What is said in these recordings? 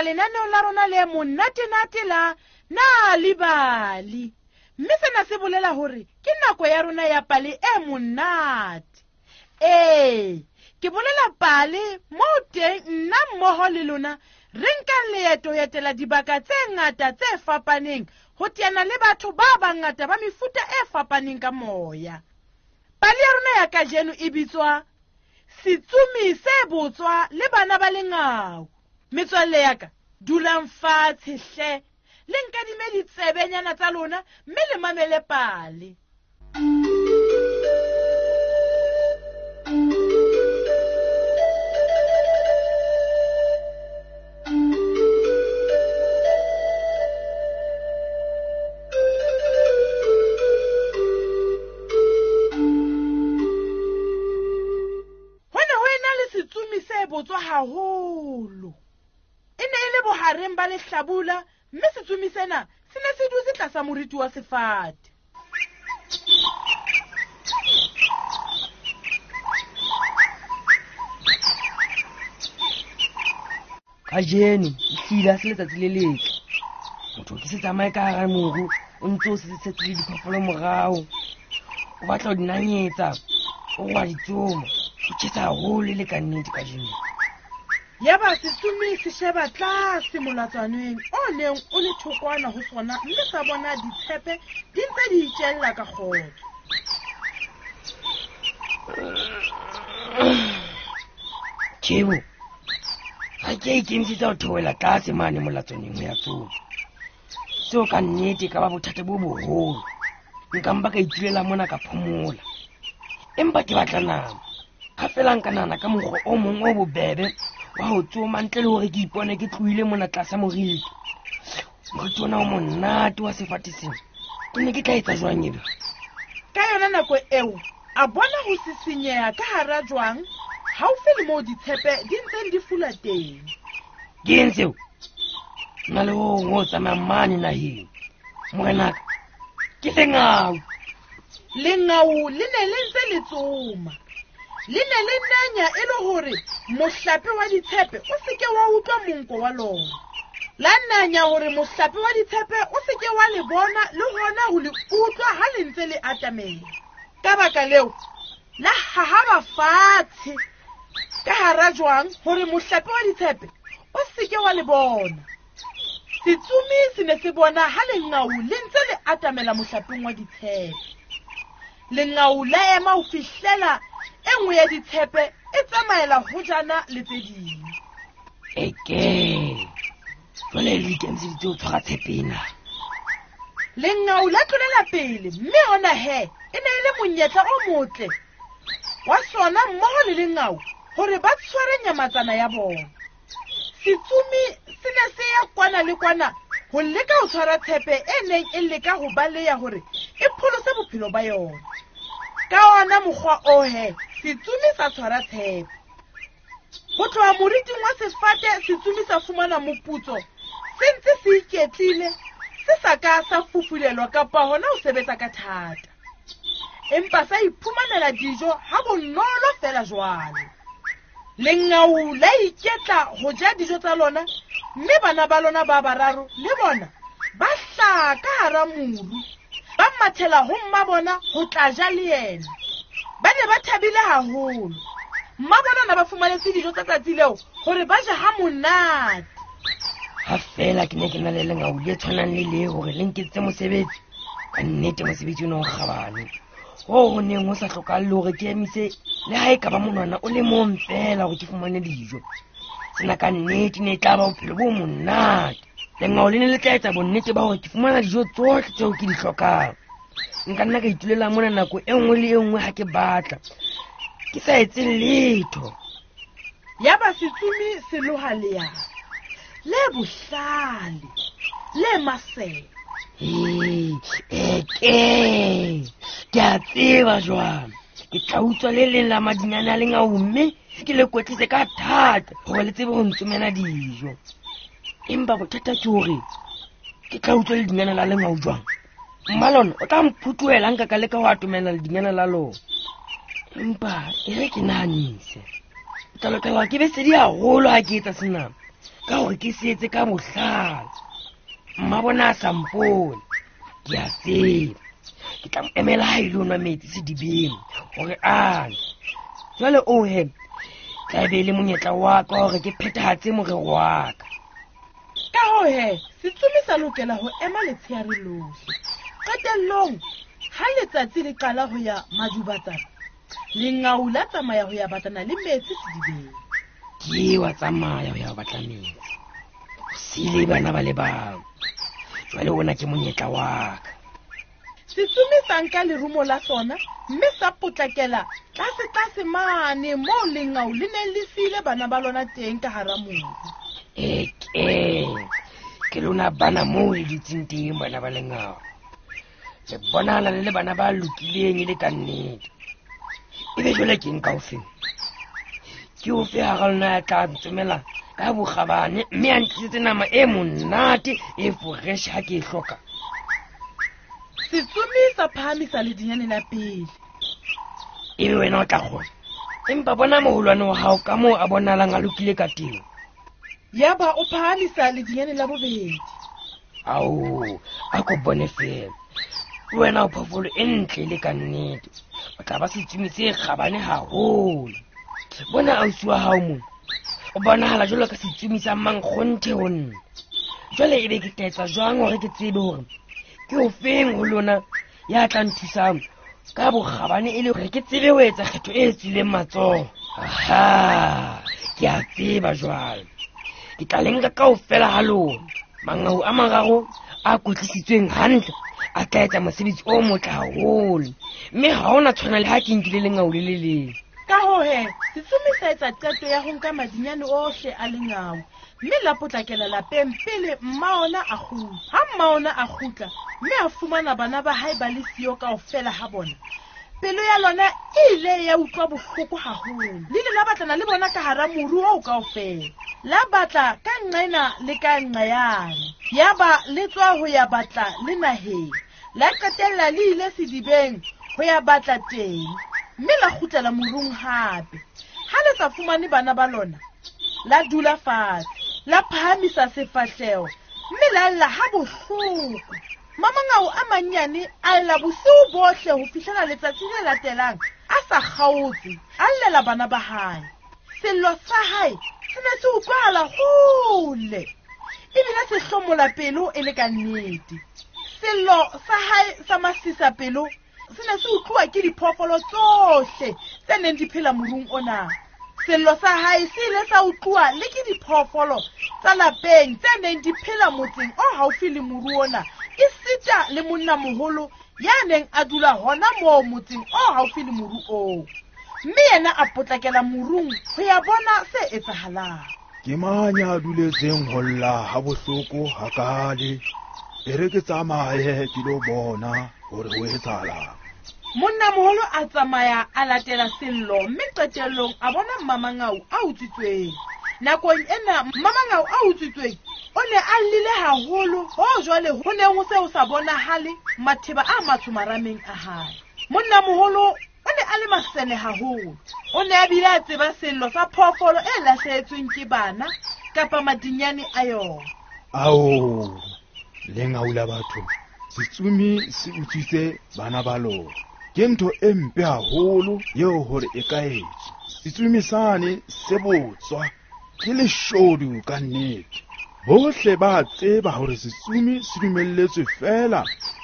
lenaneong la rona le monatenate la Na Libali. Mme sena se bolela hore ke nako ya rona ya pale e monate. Ee, ke bolela pale moo teng nna mmoho le lona re nkang leeto ho etela dibaka tse ngata tse fapaneng ho teana le batho ba bangata ba mefuta e fapaneng ka moya. Pale ya rona ya kajeno e bitswa Setsomi se Botswa le Bana ba Lengau. Metswalle ya ka, dulang fatshe hle, le nkadime ditsebenyana tsa lona mme le mamele pale. Ho ne ho ena le setsomi se botswa haholo. E ne e le bohareng ba lehlabula mme setsomi sena se ne se dutse tlasa moriti wa sefate. Kajeno ehlile ha se letsatsi le letle. Motho ke se tsamaye ka hara moru o ntse o setse le diphoofolo morao. O batla ho di nanyetsa, o wa di tsoma. O tjhesa haholo e le ka nnete kajeno. Yaba setsomi se sheba tlase molatswaneng o neng o le thokwana ho sona mme sa bona ditshepe di ntse di itjella ka kgotso. Tjhebo, ga ke a ikemisetsa ho theohela tlase mane molatswaneng ho ya tsoma. Seo ka nnete e ka ba bothata bo boholo. Nka mpa ka itulela mona ka phomola. Empa ke batla nama. Ga fela nka nahana ka mokgwa o mong o bobebe wa ho tsoma ntle le hore ke ipone ke tlohile mona tlasa moriti. Moriti ona o monate wa sefate sena. Ke ne ke tla etsa jwang ebe? Ka yona nako eo, a bona ho sisinyeha ka hara jwang haufi le moo ditshepe di ntseng di fula teng. Ke eng seo? Nna le ho hong ho tsamayang mane naheng. Morenaka, ke lengau. Lengau le ne le ntse le tsoma. Le ne le nanya e le hore mohlape wa ditshepe o se ke wa utlwa monko wa lona. La nanya hore mohlape wa ditshepe o se ke wa le bona le hona ho le utlwa ha le ntse le atamela. Ka baka leo, la hahaba fatshe ka hara jwang hore mohlape wa ditshepe o se ke wa le bona. Setsomi se ne se bona ha lengau le ntse le atamela mohlapeng wa ditshepe. Lengau la ema ho fihlela e nngwe ya ditshepe e tsamaela hojana le tse ding. Eke, jwale le ikemiseditse ho tshwara tshepe ena. Lengau la tlolela pele mme hona he e ne e le monyetla o motle wa sona mmoho le lengau hore ba tshware nyamatsana ya bona. Setsomi se ne se ya kwana le kwana ho leka ho tshwara tshepe e neng e leka ho baleya hore e pholose bophelo ba yona. Ka ona mokgwa o he, setsomi sa tshwara tshepe. Ho tloha moriting wa sefate, setsomi sa fumana moputso se ntse se iketlile, se sa ka sa fufulelwa kapa hona ho sebetsa ka thata. Empa sa iphumanela dijo ha bonolo feela jwalo. Lengau la iketla ho ja dijo tsa lona, mme bana ba lona ba bararo le bona ba hlaha ka hara moru, ba mathela ho mma bona ho tla ja le yena. Ba ne ba thabile haholo. Mma bona na ba fumanetse dijo tsa tsatsi leo hore ba je ha monate. Ha feela ke ne ke na le lengau le tshwanang le le hore le nketsetse mosebetsi, ka nnete mosebetsi ona o kgabane. Hoo ho neng ho sa hlokahale hore ke emise le ha e ka ba monwana o le mong feela hore ke fumane dijo. Sena ka nnete ne e tla ba bophelo bo monate. Lengau le ne le tla etsa bonnete ba hore ke fumana dijo tsohle tseo ke di hlokang. Nka nna ka itulela mona nako e nngwe le e nngwe ha ke batla, ke sa etse letho. Yaba setsomi se loha leano le bohlale le masene. Ee, eke ke a tseba jwang. Ke tla utswa le leng la madinyane a lengau mme ke le kwetlise ka thata hore le tsebe ho ntsomela dijo. Empa bothata ke hore ke tla utswa ledinyane la lengau jwang? Mma lona o tla mphutuhela nka ka leka ho atomela ledinyane la lona. Empa e re ke nahanise. Ke tla lokela hore ke be sedi haholo ha ke etsa sena. Ka hore ke se etse ka bohlale. Mma bona a sa mpone. Ke a tseba. Ke tla mo emela ha ile ho nwa metsi sedibeng hore a nwe. Jwale o he, tla be e le monyetla wa ka hore ke phethahatse morero wa ka. Ka hoo he, setsomi sa lokela ho ema letsheare lohle. Qetellong, ha letsatsi le qala ho ya madubatsana, lengau la tsamaya ho ya batlana le metsi sedibeng. Ke wa tsamaya ho ya batla metsi. O siile bana ba le bang. Jwale ona ke monyetla wa ka. Setsomi sa nka lerumo la sona mme sa potlakela tlase-tlase mane moo lengau le neng le siile bana ba lona teng ka hara moru. Eke, ke lona bana moo le dutseng teng bana ba lengau. Le bonahala le le bana ba lokileng e le ka nnete. Ebe jwale ke nka ofeng? Ke ofe hara lona ya tla ntsomela ka bokgabane mme a ntlisetse nama e monate e fresh ha ke e hloka? Setsomi sa phahamisa ledinyane la pele. Ebe wena o tla kgona. Empa bona moholwane wa hao ka moo a bonahalang a lokile ka teng. Yaba o phahamisa ledinyane la bobedi. Ao, a ko bone fela. Wena o phoofolo e ntle le ka nnete. O tla ba setsomi se kgabane haholo. Bona ausi wa hao mona. O bonahala jwalo ka setsomi sa mankgonthe ho nna. Jwale ebe ke tla etsa jwang hore ke tsebe hore ke ofeng ho lona ya tla nthusang ka bokgabane e le hore ke tsebe ho etsa kgetho e tswileng matsoho? Aha, ke a tseba jwale. Ke tla le nka kaofela ha lona. Mangau a mararo a kwetlisitsweng hantle a tla etsa mosebetsi o motle haholo. Mme ha hona tshwana le ha ke nkile lengau le le leng. Ka hoo he, setsomi sa etsa qeto ya ho nka madinyane ohle a lengau mme la potlakela lapeng pele mma ona a kgutla. Ha mma ona a kgutla mme a fumana bana ba hae ba le siyo kaofela ha bona, pelo ya lona e ile ya utlwa bohloko haholo. Le ile la batlana le bona ka hara moru oo kaofela. La batla ka nqena le ka nqayane. Yaba le tswa ho ya batla le naheng. La qetella le ile sedibeng ho ya batla teng. Mme la kgutlela morung hape. Ha le sa fumane bana ba lona, la dula fatshe, la phahamisa sefahleho mme la lla ha bohloko. Mamangau a mannyane a lla bosiu bohle ho fihlela letsatsi le latelang a sa kgaotse, a llela bana ba hae. Sello sa hae se ne se utlwahala hole, ebile se hlomola pelo e le ka nnete. Sello sa hae sa masisa pelo se ne se utluwa ke diphoofolo tsohle tse neng di phela morung ona. Sello sa hae se ile sa utluwa le ke diphoofolo tsa lapeng tse neng di phela motseng o haufi le moru ona, esita le monnamoholo ya neng a dula hona moo motseng o haufi le moru oo. Mme yena a potlakela morung ho ya bona se etsahalang. Ke mang ya duletseng ho lla ha bohloko hakale? E re ke tsamaye ke lo bona hore ho etsahalang. Monnamoholo a tsamaya a latela sello mme qetellong a bona Mmamangau a utswitsweng. Nakong ena Mmamangau a utswitsweng o ne a llile haholo hoo jwale ho neng ho se ho sa bonahale matheba a matsho marameng a hae. Monnamoholo o ne a le masene haholo. O ne a bile a tseba sello sa phoofolo e lahlehetsweng ke bana kapa madinyane a yona. Ao, lengau la batho, setsomi se utswitse bana ba lona. Ke ntho e mpe haholo eo hore e ka etswa. Setsomi sane se botswa, ke leshodu ka nnete. Bohle ba tseba hore setsomi se dumelletswe feela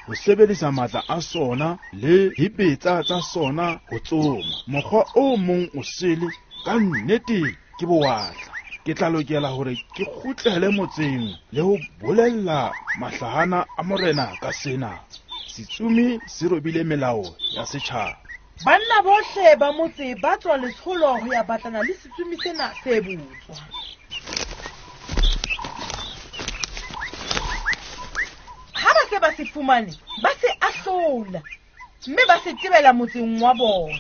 ho sebedisa matla a sona le dibetsa tsa sona ho tsoma. Mokgwa o mong o sele ka nnete ke bowatla. Ke tla lokela hore ke kgutlele motseng le ho bolella mahlahana a morena ka sena. Setsomi se robile melao ya setjhaba. Banna bohle ba motse ba tswa letsholo ho ya batlana le setsomi sena se botswa. Ha ba se ba se fumane, ba se ahlola mme ba se tebela motseng wa bona.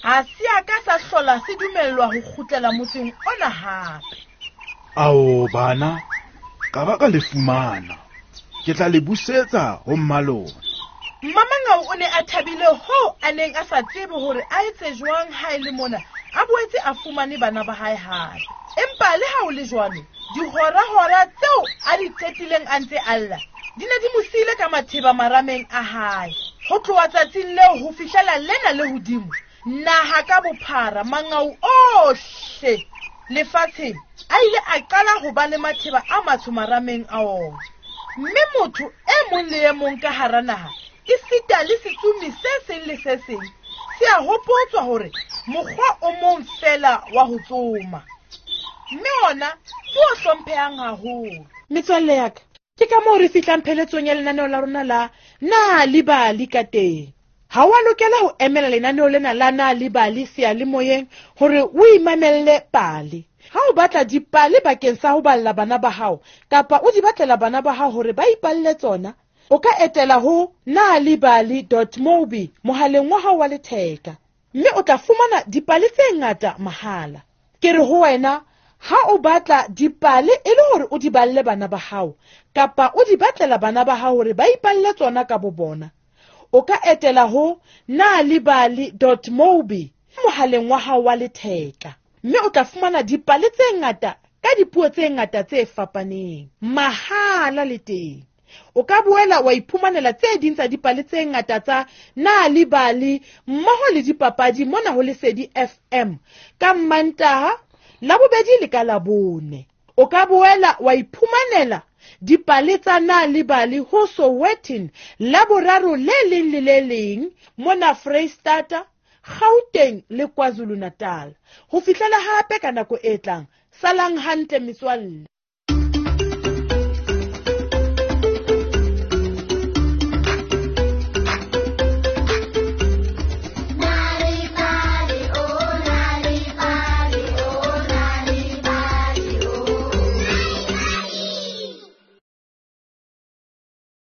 Ha se a ka sa hlola se dumellwa ho kgutlela motseng ona hape. Ao bana, ka ba ka le fumana. Ke tla le busetsa ho mmalona. Mmamangau o ne a thabile hoo a neng a sa tsebe hore a etse jwang ha e le mona. a boetse a fumane bana ba hae hape. Empa le ha ho le jwalo, dihora-hora tseo a di qetileng a ntse a lla di ne di mo siile ka matheba marameng a hae. Ho tloha tsatsing leo ho fihlela lena le hodimo, naha ka bophara, mangau ohle lefatsheng a ile a qala ho ba le matheba a matsho marameng a ona. Mme motho e mong le e mong ka hara naha, esita le setsomi se seng le se seng, se a hopotswa hore mokgwa o mong feela wa ho tsoma, mme ona ke o hlomphehang haholo. Metswalle ya ka, ke ka moo re fihlang pheletsong ya lenaneo la rona la Na le Bali ka teng. Ha o a lokela ho emela lenaneo lena la Na le Bali seyalemoyeng hore o imamelle pale. Ha o batla dipale bakeng sa ho balla bana ba hao kapa o di batlela bana ba hao hore ba ipalle tsona, o ka etela ho nalibali dot mobi mohaleng wa hao wa letheka mme o tla fumana dipale tse ngata mahala. Ke re ho wena, ha o batla dipale e le hore o di balle bana ba hao kapa o di batlela bana ba hao hore ba ipalle tsona ka bobona, o ka etela ho nalibali dot mobi mohaleng wa hao wa letheka mme o tla fumana dipale tse ngata ka dipuo tse ngata tse fapaneng mahala le teng. O ka boela wa iphumanela tse ding tsa dipale tse ngata tsa Nalibali mmoho le dipapadi mona ho Lesedi FM ka Mmantaha, Labobedi le ka Labone. O ka boela wa iphumanela dipale tsa Nalibali ho Sowetan Laboraro le leng le le leng mona Freistata, Gauteng le KwaZulu-Natal. Ho fihlela hape ka nako e tlang, salang hantle metswalle.